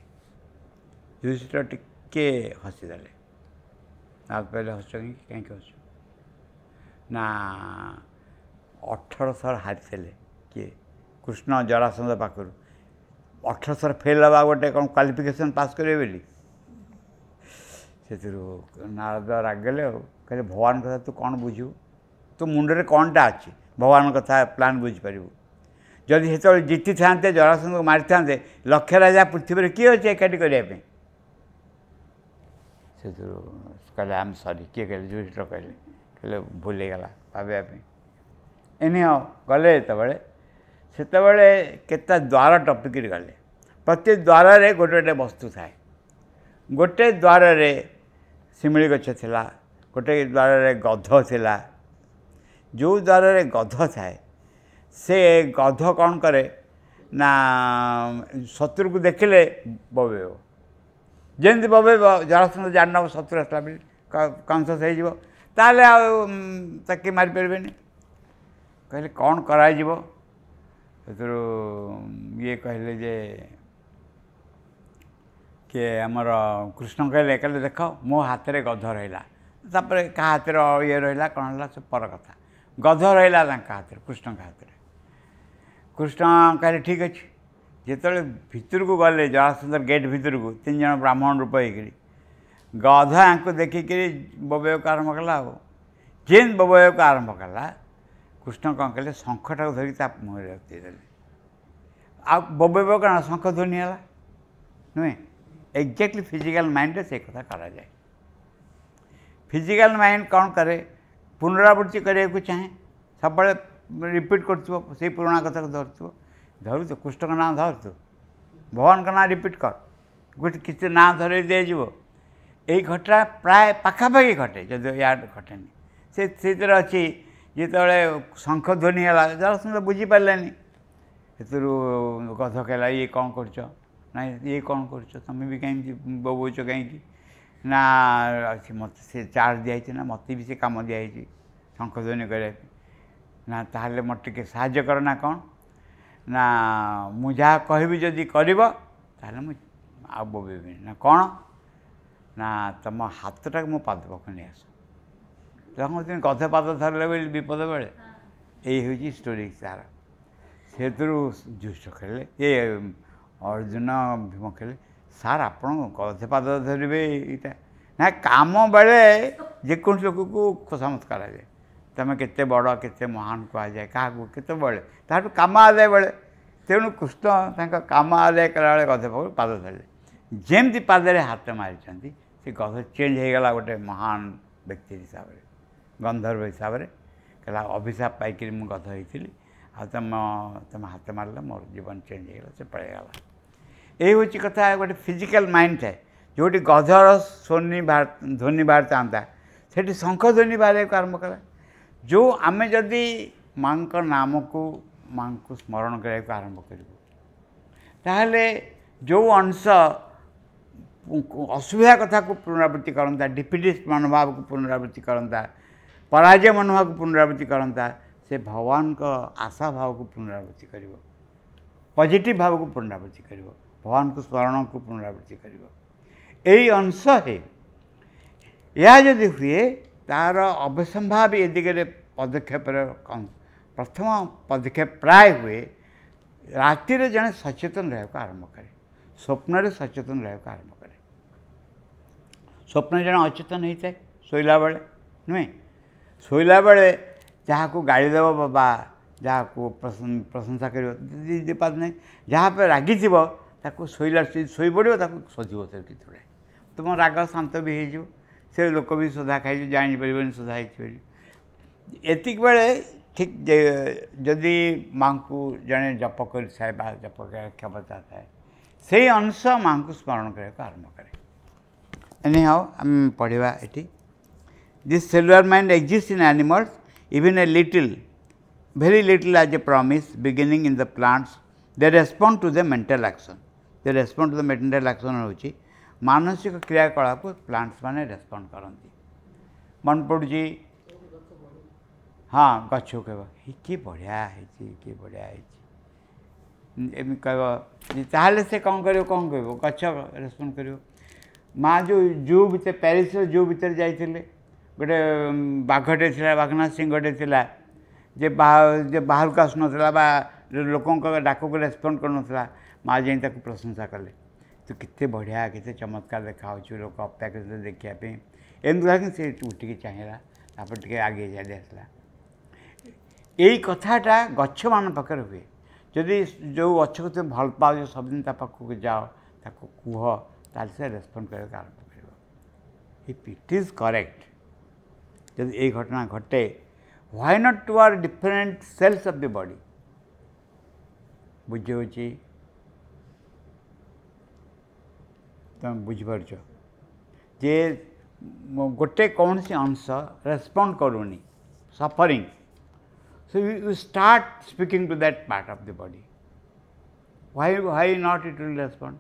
ଯୁଧିଷ୍ଠିର ଟିକେ ହସିଦେଲେ। ନାରଦ କହିଲେ ହସୁଛ କାହିଁକି? କାହିଁକି ହସୁଛ? ନା 18 ଥର ହାରିଥିଲେ କିଏ? କୃଷ୍ଣ ଜରାସନ୍ଧ ପାଖରୁ। 18 ଥର ଫେଲ୍ ହେବା ଗୋଟେ କ'ଣ କ୍ୱାଲିଫିକେସନ୍ ପାସ୍ କରିବେ ବୋଲି। ସେଥିରୁ ନାରଦ ରାଗିଗଲେ ଆଉ କହିଲେ ଭଗବାନ କଥା ତୁ କ'ଣ ବୁଝିବୁ, ତୋ ମୁଣ୍ଡରେ କ'ଣଟା ଅଛି ଭଗବାନଙ୍କ କଥା ପ୍ଲାନ୍ ବୁଝିପାରିବୁ। ଯଦି ସେତେବେଳେ ଜିତିଥାନ୍ତେ, ଜରାସନ୍ଧକୁ ମାରିଥାନ୍ତେ, ଲକ୍ଷ ରାଜା ପୃଥିବୀରେ କିଏ ଅଛି ଏକାଠି କରିବା ପାଇଁ। ସେଥିରୁ କହିଲେ ଆମେ ସରି, କିଏ କହିଲେ ଯୁଧିଷ୍ଠିର କହିଲେ, କହିଲେ ଭୁଲ ହେଇଗଲା ଭାବିବା ପାଇଁ। ଏନି ହଁ ଗଲେ ଯେତେବେଳେ, ସେତେବେଳେ କେତେ ଦ୍ୱାର ଟପିକିରି ଗଲେ। ପ୍ରତି ଦ୍ୱାରରେ ଗୋଟେ ଗୋଟେ ବସ୍ତୁ ଥାଏ। ଗୋଟେ ଦ୍ୱାରରେ ଶିମିଳି ଗଛ ଥିଲା, ଗୋଟେ ଦ୍ୱାରରେ ଗଧ ଥିଲା। ଯେଉଁ ଦ୍ୱାରରେ ଗଧ ଥାଏ ସେ ଗଧ କ'ଣ କରେ ନା ଶତ୍ରୁକୁ ଦେଖିଲେ ବବେଇବ। ଯେମିତି ବବେଇବ ଜରାସନ୍ଧ ଜାଣିନେବ ଶତ୍ରୁ ଆସିଲା ବୋଲି, କନସିୟସ୍ ହେଇଯିବ, ତାହେଲେ ଆଉ ତାକୁ ମାରିପାରିବେନି। କହିଲେ କ'ଣ କରାଯିବ। ସେଥିରୁ ଇଏ କହିଲେ ଯେ କିଏ ଆମର କୃଷ୍ଣ କହିଲେ, କହିଲେ ଦେଖ ମୋ ହାତରେ ଗଧ ରହିଲା, ତାପରେ କାହା ହାତରେ ଇଏ ରହିଲା କ'ଣ ହେଲା ସେ ପର କଥା, ଗଧ ରହିଲା ତାଙ୍କ ହାତରେ, କୃଷ୍ଣଙ୍କ ହାତରେ। କୃଷ୍ଣ କହିଲେ ଠିକ୍ ଅଛି। ଯେତେବେଳେ ଭିତରକୁ ଗଲେ ଜରାସନ୍ଧର ଗେଟ୍ ଭିତରକୁ, 3 ଜଣ ବ୍ରାହ୍ମଣ ରୂପ ହେଇକିରି ଗଧ ଆଙ୍କୁ ଦେଖିକିରି ବୋବେଇବାକୁ ଆରମ୍ଭ କଲା। ଆଉ ଯେମିତି ବୋବେଇବାକୁ ଆରମ୍ଭ କଲା, କୃଷ୍ଣ କ'ଣ କଲେ, ଶଙ୍ଖଟାକୁ ଧରିକି ତା ମୁହଁରେ ଦେଇଦେଲେ। ଆଉ ବୋବେଇବ କ'ଣ, ଶଙ୍ଖ ଧ୍ୱନି ହେଲା ନୁହେଁ। ଏକ୍ଜାକ୍ଟଲି ଫିଜିକାଲ୍ ମାଇଣ୍ଡରେ ସେ କଥା କରାଯାଏ। ଫିଜିକାଲ୍ ମାଇଣ୍ଡ କ'ଣ କରେ, ପୁନରାବୃତ୍ତି କରିବାକୁ ଚାହେଁ, ସବୁବେଳେ ରିପିଟ୍ କରୁଥିବ, ସେଇ ପୁରୁଣା କଥାକୁ ଧରୁଥିବ। ଧରୁଛୁ କୃଷ୍ଣଙ୍କ ନାଁ ଧରୁଛୁ, ଭଗବାନଙ୍କ ନାଁ ରିପିଟ୍ କର, ଗୋଟେ କିଛି ନାଁ ଧରେଇ ଦିଆଯିବ। ଏଇ ଘଟଣା ପ୍ରାୟ ପାଖାପାଖି ଘଟେ, ଯଦି ୟାଡ଼ ଘଟେନି। ସେ ସେଥିରେ ଅଛି, ଯେତେବେଳେ ଶଙ୍ଖ ଧ୍ୱନି ହେଲା ଜରାସନ୍ଧ ବୁଝିପାରିଲେନି। ସେଥିରୁ ଗଧ କହିଲା ଇଏ କ'ଣ କରୁଛ, ନାଇଁ ଇଏ କ'ଣ କରୁଛ, ତୁମେ ବି କାହିଁକି ବୋବଉଛ କାହିଁକି। ନା ମୋତେ ସେ ଚାର୍ଜ ଦିଆହେଇଛି, ନା ମୋତେ ବି ସେ କାମ ଦିଆହେଇଛି ଶଙ୍ଖ ଧ୍ୱନି କରିବା ପାଇଁ। ନା ତାହେଲେ ମୋତେ ଟିକେ ସାହାଯ୍ୟ କର। ନା କ'ଣ, ନା ମୁଁ ଯାହା କହିବି ଯଦି କରିବ ତାହେଲେ ମୁଁ ଆଉ ବୋବେଇବିନି। ନା କ'ଣ, ନା ତୁମ ହାତଟାକୁ ମୋ ପାଦ ପାଖକୁ ନେଇ ଆସ। ତମେ ଗଧ ପାଦ ଧରିଲେ ବୋଲି ବିପଦ ବେଳେ, ଏଇ ହେଉଛି ଷ୍ଟୋରି ତାର। ସେଥିରୁ ଯୁଧିଷ୍ଠିର ଖେଳିଲେ, ଏ ଅର୍ଜୁନ ଭୀମ ଖେଳିଲେ, ସାର୍ ଆପଣ ଗଧ ପାଦ ଧରିବେ ଏଇଟା ନା, କାମ ବେଳେ ଯେକୌଣସି ଲୋକକୁ ଖୋସାମତ କରାଯାଏ, ତୁମେ କେତେ ବଡ଼ କେତେ ମହାନ କୁହାଯାଏ କାହାକୁ କେତେବେଳେ, ତାଠୁ କାମ ଆଦାୟ ବେଳେ। ତେଣୁ କୃଷ୍ଣ ତାଙ୍କ କାମ ଆଦାୟ କଲାବେଳେ ଗଧ ପାଖକୁ ପାଦ ଧରିଲେ। ଯେମିତି ପାଦରେ ହାତ ମାରିଛନ୍ତି ସେ ଗଧ ଚେଞ୍ଜ ହେଇଗଲା ଗୋଟେ ମହାନ ବ୍ୟକ୍ତି ହିସାବରେ, ଗନ୍ଧର୍ବ ହିସାବରେ। କହିଲା ଅଭିଶାପ ପାଇକିରି ମୁଁ ଗଧ ହେଇଥିଲି, ଆଉ ତୁମ ହାତ ମାରିଲେ ମୋର ଜୀବନ ଚେଞ୍ଜ ହେଇଗଲା, ସେ ପଳେଇଗଲା। ଏଇ ହେଉଛି କଥା। ଗୋଟେ ଫିଜିକାଲ୍ ମାଇଣ୍ଡ ଥାଏ, ଯେଉଁଠି ଗଧର ଧ୍ୱନି ବାହାରିଥାନ୍ତା ସେଠି ଶଙ୍ଖ ଧ୍ୱନି ବାହାରିବାକୁ ଆରମ୍ଭ କଲା। ଯେଉଁ ଆମେ ଯଦି ମାଆଙ୍କ ନାମକୁ, ମାଆଙ୍କୁ ସ୍ମରଣ କରିବାକୁ ଆରମ୍ଭ କରିବୁ, ତାହେଲେ ଯେଉଁ ଅଂଶ ଅସୁବିଧା କଥାକୁ ପୁନରାବୃତ୍ତି କରନ୍ତା, ଡିଫିଟିଷ୍ଟ ମନୋଭାବକୁ ପୁନରାବୃତ୍ତି କରନ୍ତା, ପରାଜୟ ମନୋଭାବକୁ ପୁନରାବୃତ୍ତି କରନ୍ତା, ସେ ଭଗବାନଙ୍କ ଆଶା ଭାବକୁ ପୁନରାବୃତ୍ତି କରିବ, ପଜିଟିଭ୍ ଭାବକୁ ପୁନରାବୃତ୍ତି କରିବ, ଭଗବାନଙ୍କୁ ସ୍ମରଣକୁ ପୁନରାବୃତ୍ତି କରିବ। ଏଇ ଅଂଶ ହିଁ ଏହା ଯଦି ହୁଏ, ତା'ର ଅବସମ୍ଭାବୀ ଏ ଦିଗରେ ପଦକ୍ଷେପର ପ୍ରଥମ ପଦକ୍ଷେପ ପ୍ରାୟ ହୁଏ। ରାତିରେ ଜଣେ ସଚେତନ ରହିବାକୁ ଆରମ୍ଭ କରେ, ସ୍ୱପ୍ନରେ ସଚେତନ ରହିବାକୁ ଆରମ୍ଭ କରେ। ସ୍ୱପ୍ନରେ ଜଣେ ଅଚେତନ ହେଇଥାଏ ଶୋଇଲା ବେଳେ, ନୁହେଁ? ଶୋଇଲା ବେଳେ ଯାହାକୁ ଗାଳି ଦେବ ବା ଯାହାକୁ ପ୍ରଶଂସା କରିବ ନାହିଁ, ଯାହା ଉପରେ ରାଗିଥିବ ତାକୁ ଶୋଇଲା ଶୋଇପଡ଼ିବ, ତାକୁ ଶୋଧିବ ସେ କେତେବେଳେ, ତୁମ ରାଗ ଶାନ୍ତ ବି ହେଇଯିବ, ସେ ଲୋକ ବି ସୋଧା ଖାଇଯିବ, ଜାଣିପାରିବନି ସୋଧା ହେଇଛି ବୋଲି। ଏତିକି ବେଳେ ଠିକ୍ ଯଦି ମାଆଙ୍କୁ ଜଣେ ଜପ କରିଥାଏ ବା ଜପ କରିବା କ୍ଷମତା ଥାଏ, ସେଇ ଅଂଶ ମାଆଙ୍କୁ ସ୍ମରଣ କରିବାକୁ ଆରମ୍ଭ କରେ। ଏନିହାଉ ଆମେ ପଢ଼ିବା ଏଠି। This cellular mind exist in animals even a little, very little as a promise beginning in the plants. They respond to the mental action. They respond to the mental action ହେଉଛି ମାନସିକ କ୍ରିୟାକଳାପକୁ ପ୍ଲାଣ୍ଟସ୍ ମାନେ respond କରନ୍ତି। ମନେ ପଡ଼ୁଛି, ହଁ ଗଛକୁ କହିବ କି ବଢ଼ିଆ ହେଇଛି, କି ବଢ଼ିଆ ହେଇଛି, ଏମିତି କହିବ, ତାହେଲେ ସେ କ'ଣ କରିବ, କ'ଣ କହିବ, ଗଛ ରେସ୍ପଣ୍ଡ କରିବ। ମା' ଯେଉଁ ଜୁ ଭିତରେ, ପ୍ୟାରିସ୍ର ଜୁ ଭିତରେ ଯାଇଥିଲେ, ଗୋଟେ ବାଘଟେ ଥିଲା, ବାଘନା ସିଂହଟେ ଥିଲା, ଯେ ବାହାରକୁ ଆସୁନଥିଲା ବା ଲୋକଙ୍କ ଡାକକୁ ରେସ୍ପଣ୍ଡ କରୁନଥିଲା, ମା ଯାଇ ତାକୁ ପ୍ରଶଂସା କଲେ, ତୁ କେତେ ବଢ଼ିଆ, କେତେ ଚମତ୍କାର ଦେଖାହେଉଛୁ, ଲୋକ ଅପେକ୍ଷା କରୁଛନ୍ତି ଦେଖିବା ପାଇଁ। ଏମିତି କହିକି ସେ ଉଠିକି ଚାହିଁଲା, ତାପରେ ଟିକେ ଆଗେଇ ଚାଲି ଆସିଲା। ଏଇ କଥାଟା ଗଛମାନଙ୍କ ପାଖରେ ହୁଏ। ଯଦି ଯେଉଁ ଗଛକୁ ତୁମେ ଭଲ ପାଉଛ, ସବୁଦିନ ତା ପାଖକୁ ଯାଅ, ତାକୁ କୁହ, ତାହେଲେ ସେ ରେସ୍ପଣ୍ଡ କରିବାକୁ ଆରମ୍ଭ କରିବ। If it is correct, ଯଦି ଏଇ ଘଟଣା ଘଟେ, why not to our different cells of the body? ବୁଝି ହେଉଛି? ତୁମେ ବୁଝିପାରୁଛ ଯେ ଗୋଟେ କୌଣସି ଅଂଶ ରେସ୍ପଣ୍ଡ କରୁନି, suffering, so you start speaking to that part of the body, why not it will respond?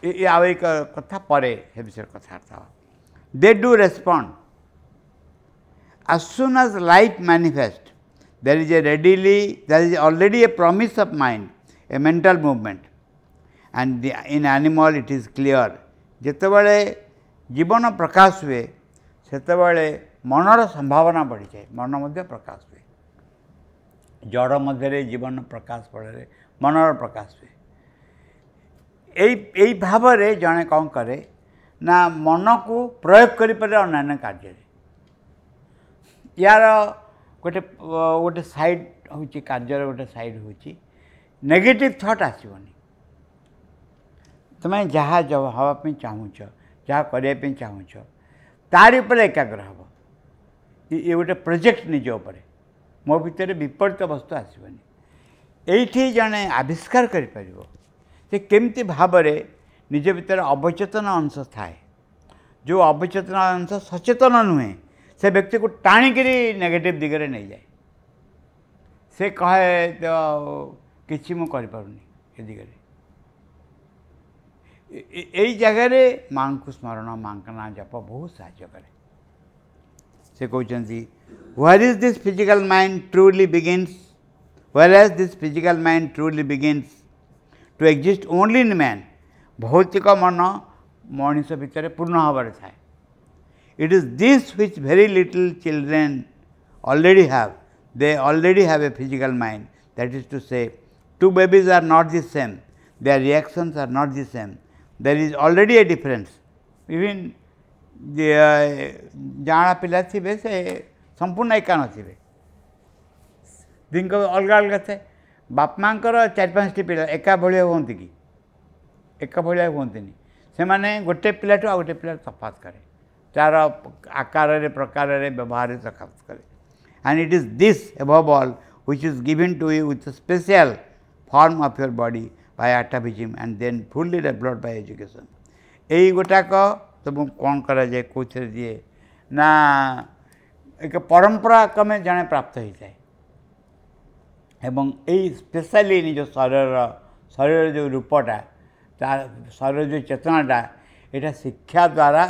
ଏ ଆଉ ଏକ କଥା, ପରେ ସେ ବିଷୟରେ କଥାବାର୍ତ୍ତା ହେବା। They do respond. As soon as life manifests, there is a readily, there is already a promise of mind, a mental movement, and the, in animal it is clear. ଯେତେବେଳେ ଜୀବନ ପ୍ରକାଶ ହୁଏ ସେତେବେଳେ ମନର ସମ୍ଭାବନା ବଢ଼ିଯାଏ, ମନ ମଧ୍ୟ ପ୍ରକାଶ ହୁଏ। ଜଡ଼ ମଧ୍ୟରେ ଜୀବନ ପ୍ରକାଶ ଫଳରେ ମନର ପ୍ରକାଶ ହୁଏ। ଏଇ ଭାବରେ ଜଣେ କ'ଣ କରେ ନା ମନକୁ ପ୍ରୟୋଗ କରିପାରେ ଅନ୍ୟାନ୍ୟ କାର୍ଯ୍ୟରେ। ୟାର ଗୋଟେ ଗୋଟେ ସାଇଡ଼୍ ହେଉଛି, କାର୍ଯ୍ୟର ଗୋଟେ ସାଇଡ଼୍ ହେଉଛି ନେଗେଟିଭ୍ ଥଟ୍ ଆସିବନି। ତୁମେ ଯାହା ହେବା ପାଇଁ ଚାହୁଁଛ, ଯାହା କରିବା ପାଇଁ ଚାହୁଁଛ, ତାରି ଉପରେ ଏକାଗ୍ର ହେବ। ଇଏ ଗୋଟେ ପ୍ରୋଜେକ୍ଟ ନିଜ ଉପରେ, ମୋ ଭିତରେ ବିପରୀତ ବସ୍ତୁ ଆସିବନି। ଏଇଠି ଜଣେ ଆବିଷ୍କାର କରିପାରିବ ଯେ କେମିତି ଭାବରେ ନିଜ ଭିତରେ ଅବଚେତନ ଅଂଶ ଥାଏ, ଯେଉଁ ଅବଚେତନ ଅଂଶ ସଚେତନ ନୁହେଁ, ସେ ବ୍ୟକ୍ତିକୁ ଟାଣିକିରି ନେଗେଟିଭ୍ ଦିଗରେ ନେଇଯାଏ। ସେ କହେ ତ କିଛି ମୁଁ କରିପାରୁନି ଏ ଦିଗରେ। ଏଇ ଜାଗାରେ ମାଆଙ୍କୁ ସ୍ମରଣ, ମାଆଙ୍କ ନାଁ ଜପ ବହୁତ ସାହାଯ୍ୟ କରେ। ସେ କହୁଛନ୍ତି, where is this physical mind truly begins, whereas this physical mind truly begins to exist only in man. ଭୌତିକ ମନ ମଣିଷ ଭିତରେ ପୂର୍ଣ୍ଣ ଭାବରେ ଥାଏ। It is this which very little children already have. They already have a physical mind. That is to say, two babies are not the same. Their reactions are not the same. There is already a difference. Even the ଜାଣା ପିଲା ଥିବେ ସେ ସମ୍ପୂର୍ଣ୍ଣ ଏକା ନଥିବେ, ଦିଙ୍କ ଅଲଗା ଅଲଗା ଥାଏ। ବାପା ମାଆଙ୍କର 4-5ଟି ପିଲା ଏକା ଭଳିଆ ହୁଅନ୍ତି କି? ଏକା ଭଳିଆ ହୁଅନ୍ତିନି। ସେମାନେ ଗୋଟେ ପିଲାଠୁ ଆଉ ଗୋଟେ ପିଲା ତଫାତ କରେ, ତାର ଆକାରରେ, ପ୍ରକାରରେ, ବ୍ୟବହାରରେ ତଫାତ କରେ। And it is this above all which is given to you with a special form of your body by atavism and then fully developed by education. ଏଇ ଗୋଟାକ ତୁମକୁ କ'ଣ କରାଯାଏ, କେଉଁଥିରେ ଦିଏ ନା ଏକ ପରମ୍ପରା କ୍ରମେ ଜଣେ ପ୍ରାପ୍ତ ହୋଇଥାଏ। ଏବଂ ଏଇ ସ୍ପେଶାଲି ନିଜ ଶରୀରର ଯେଉଁ ରୂପଟା, ତା ଶରୀର ଯେଉଁ ଚେତନାଟା, ଏଇଟା ଶିକ୍ଷା ଦ୍ୱାରା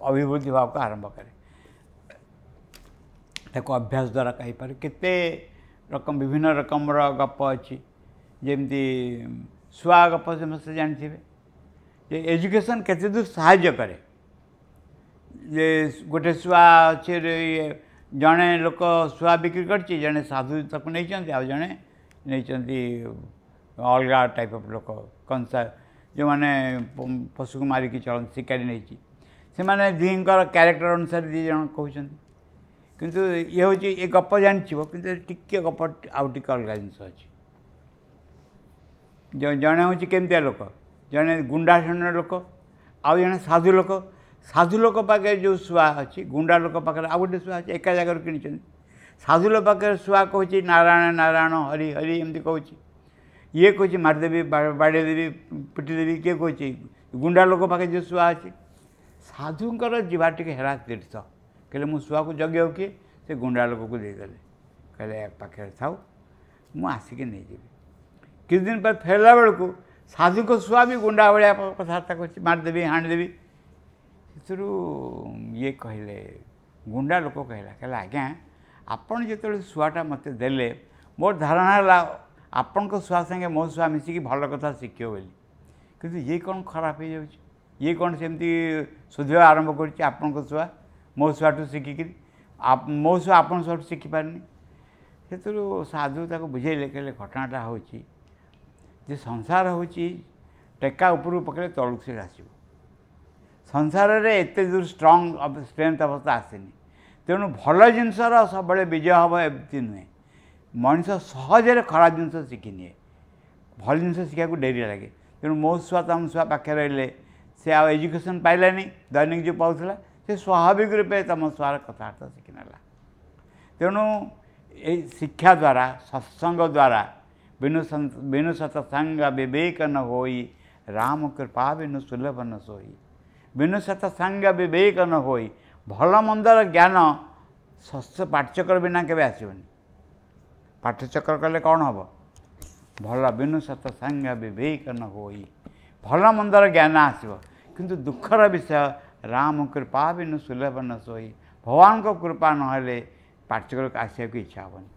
ଅଭିବୃଦ୍ଧି ହେବାକୁ ଆରମ୍ଭ କରେ। ତାକୁ ଅଭ୍ୟାସ ଦ୍ୱାରା କହିପାରେ। କେତେ ରକମ ବିଭିନ୍ନ ରକମର ଗପ ଅଛି, ଯେମିତି ଶୁଆ ଗପ ସମସ୍ତେ ଜାଣିଥିବେ ଯେ ଏଜୁକେସନ୍ କେତେ ଦୂର ସାହାଯ୍ୟ କରେ। ଯେ ଗୋଟେ ଶୁଆ ଅଛି, ଜଣେ ଲୋକ ଶୁଆ ବିକ୍ରି କରିଛି, ଜଣେ ସାଧୁ ତାକୁ ନେଇଛନ୍ତି, ଆଉ ଜଣେ ନେଇଛନ୍ତି ଅଲଗା ଟାଇପ୍ ଅଫ୍ ଲୋକ, କଂସା ଯେଉଁମାନେ ପଶୁକୁ ମାରିକି ଚଳନ୍ତି, ଶିକାରୀ ନେଇଛି। ସେମାନେ ଦୁହିଁଙ୍କର କ୍ୟାରେକ୍ଟର ଅନୁସାରେ 2 ଜଣ କହୁଛନ୍ତି। କିନ୍ତୁ ଇଏ ହେଉଛି ଏ ଗପ ଜାଣିଥିବ, କିନ୍ତୁ ଟିକେ ଗପ ଆଉ ଟିକେ ଅଲଗା ଜିନିଷ ଅଛି। ଜଣେ ହେଉଛି କେମିତିଆ ଲୋକ, ଜଣେ ଗୁଣ୍ଡା ଶ୍ରେଣୀର ଲୋକ, ଆଉ ଜଣେ ସାଧୁ ଲୋକ। ସାଧୁ ଲୋକ ପାଖରେ ଯେଉଁ ଶୁଆ ଅଛି, ଗୁଣ୍ଡା ଲୋକ ପାଖରେ ଆଉ ଗୋଟେ ଶୁଆ ଅଛି, ଏକା ଜାଗାରୁ କିଣିଛନ୍ତି। ସାଧୁ ଲୋକ ପାଖରେ ଶୁଆ କହୁଛି ନାରାୟଣ ନାରାୟଣ ହରି ହରି ଏମିତି କହୁଛି, ଇଏ କହୁଛି ମାରିଦେବି, ବାଡ଼େଇ ଦେବି, ପିଟିଦେବି। କିଏ କହୁଛି? ଗୁଣ୍ଡା ଲୋକ ପାଖରେ ଯେଉଁ ଶୁଆ ଅଛି। ସାଧୁଙ୍କର ଯିବା ଟିକେ ହେରା ତୀର୍ଥ, କହିଲେ ମୁଁ ଶୁଆକୁ ଜଗିବାକୁ କିଏ? ସେ ଗୁଣ୍ଡା ଲୋକକୁ ଦେଇଦେଲେ, କହିଲେ ପାଖରେ ଥାଉ, ମୁଁ ଆସିକି ନେଇଯିବି। କିଛି ଦିନ ପରେ ଫେରିଲା ବେଳକୁ ସାଧୁଙ୍କ ଶୁଆ ବି ଗୁଣ୍ଡା ଭଳିଆ କଥାବାର୍ତ୍ତା କରୁଛି, ମାରିଦେବି, ହାଣିଦେବି। ସେଥିରୁ ଇଏ କହିଲେ, ଗୁଣ୍ଡା ଲୋକ କହିଲା, କହିଲା ଆଜ୍ଞା ଆପଣ ଯେତେବେଳେ ଶୁଆଟା ମୋତେ ଦେଲେ, ମୋର ଧାରଣା ହେଲା ଆପଣଙ୍କ ଶୁଆ ସାଙ୍ଗେ ମୋ ଶୁଆ ମିଶିକି ଭଲ କଥା ଶିଖିବ ବୋଲି, କିନ୍ତୁ ଇଏ କ'ଣ ଖରାପ ହେଇଯାଉଛି, ଇଏ କ'ଣ ସେମିତି ଶୋଧିବା ଆରମ୍ଭ କରୁଛି ଆପଣଙ୍କ ଶୁଆ ମୋ ଶୁଆଠୁ ଶିଖିକିରି, ମୋ ଶୁଆ ଆପଣଙ୍କ ଶୁଆଠୁ ଶିଖିପାରୁନି। ସେଥିରୁ ସାଧୁ ତାକୁ ବୁଝେଇଲେ, କହିଲେ ଘଟଣାଟା ହେଉଛି ଯେ ସଂସାର ହେଉଛି ଟେକା ଉପରକୁ ପକେଇଲେ ତଳକୁ ସେ ଆସିବ। ସଂସାରରେ ଏତେ ଦୂର ଷ୍ଟ୍ରଙ୍ଗ ଷ୍ଟ୍ରେନ୍ଥ ଅବସ୍ଥା ଆସିନି। ତେଣୁ ଭଲ ଜିନିଷର ସବୁବେଳେ ବିଜୟ ହେବ ଏମିତି ନୁହେଁ। ମଣିଷ ସହଜରେ ଖରାପ ଜିନିଷ ଶିଖିନିଏ, ଭଲ ଜିନିଷ ଶିଖିବାକୁ ଡେରି ଲାଗେ। ତେଣୁ ମୋ ଛୁଆ ତମ ଛୁଆ ପାଖରେ ରହିଲେ ସେ ଆଉ ଏଜୁକେସନ୍ ପାଇଲାନି, ଦୈନିକ ଯେଉଁ ପାଉଥିଲା, ସେ ସ୍ୱାଭାବିକ ରୂପେ ତମ ଛୁଆର କଥାବାର୍ତ୍ତା ଶିଖିନେଲା। ତେଣୁ ଏଇ ଶିକ୍ଷା ଦ୍ୱାରା, ସତ୍ସଙ୍ଗ ଦ୍ୱାରା, ବିନୁ ସତ୍ସଙ୍ଗ ବିବେକ ନ ହୋଇ, ରାମ କୃପା ବିନୁ ସୁଲଭ ନ ସୋଇ। ବିନୁ ସତ୍ସଙ୍ଗ ବିବେକ ନ ହୋଇ, ଭଲ ମନ୍ଦର ଜ୍ଞାନ ଶସ୍ୟ ପାଠଚକ୍ର ବିନା କେବେ ଆସିବନି। ପାଠଚକ୍ର କଲେ କ'ଣ ହେବ? ଭଲ ବିନୁ ସତ୍ସଙ୍ଗ ବିବେକ ନ ହୋଇ, ଭଲ ମନ୍ଦର ଜ୍ଞାନ ଆସିବ। କିନ୍ତୁ ଦୁଃଖର ବିଷୟ, ରାମ କୃପା ବିନୁ ସୁଲଭ ନ ସୋଇ, ଭଗବାନଙ୍କ କୃପା ନହେଲେ ପାଠଚକ୍ରକୁ ଆସିବାକୁ ଇଚ୍ଛା ହେବନି।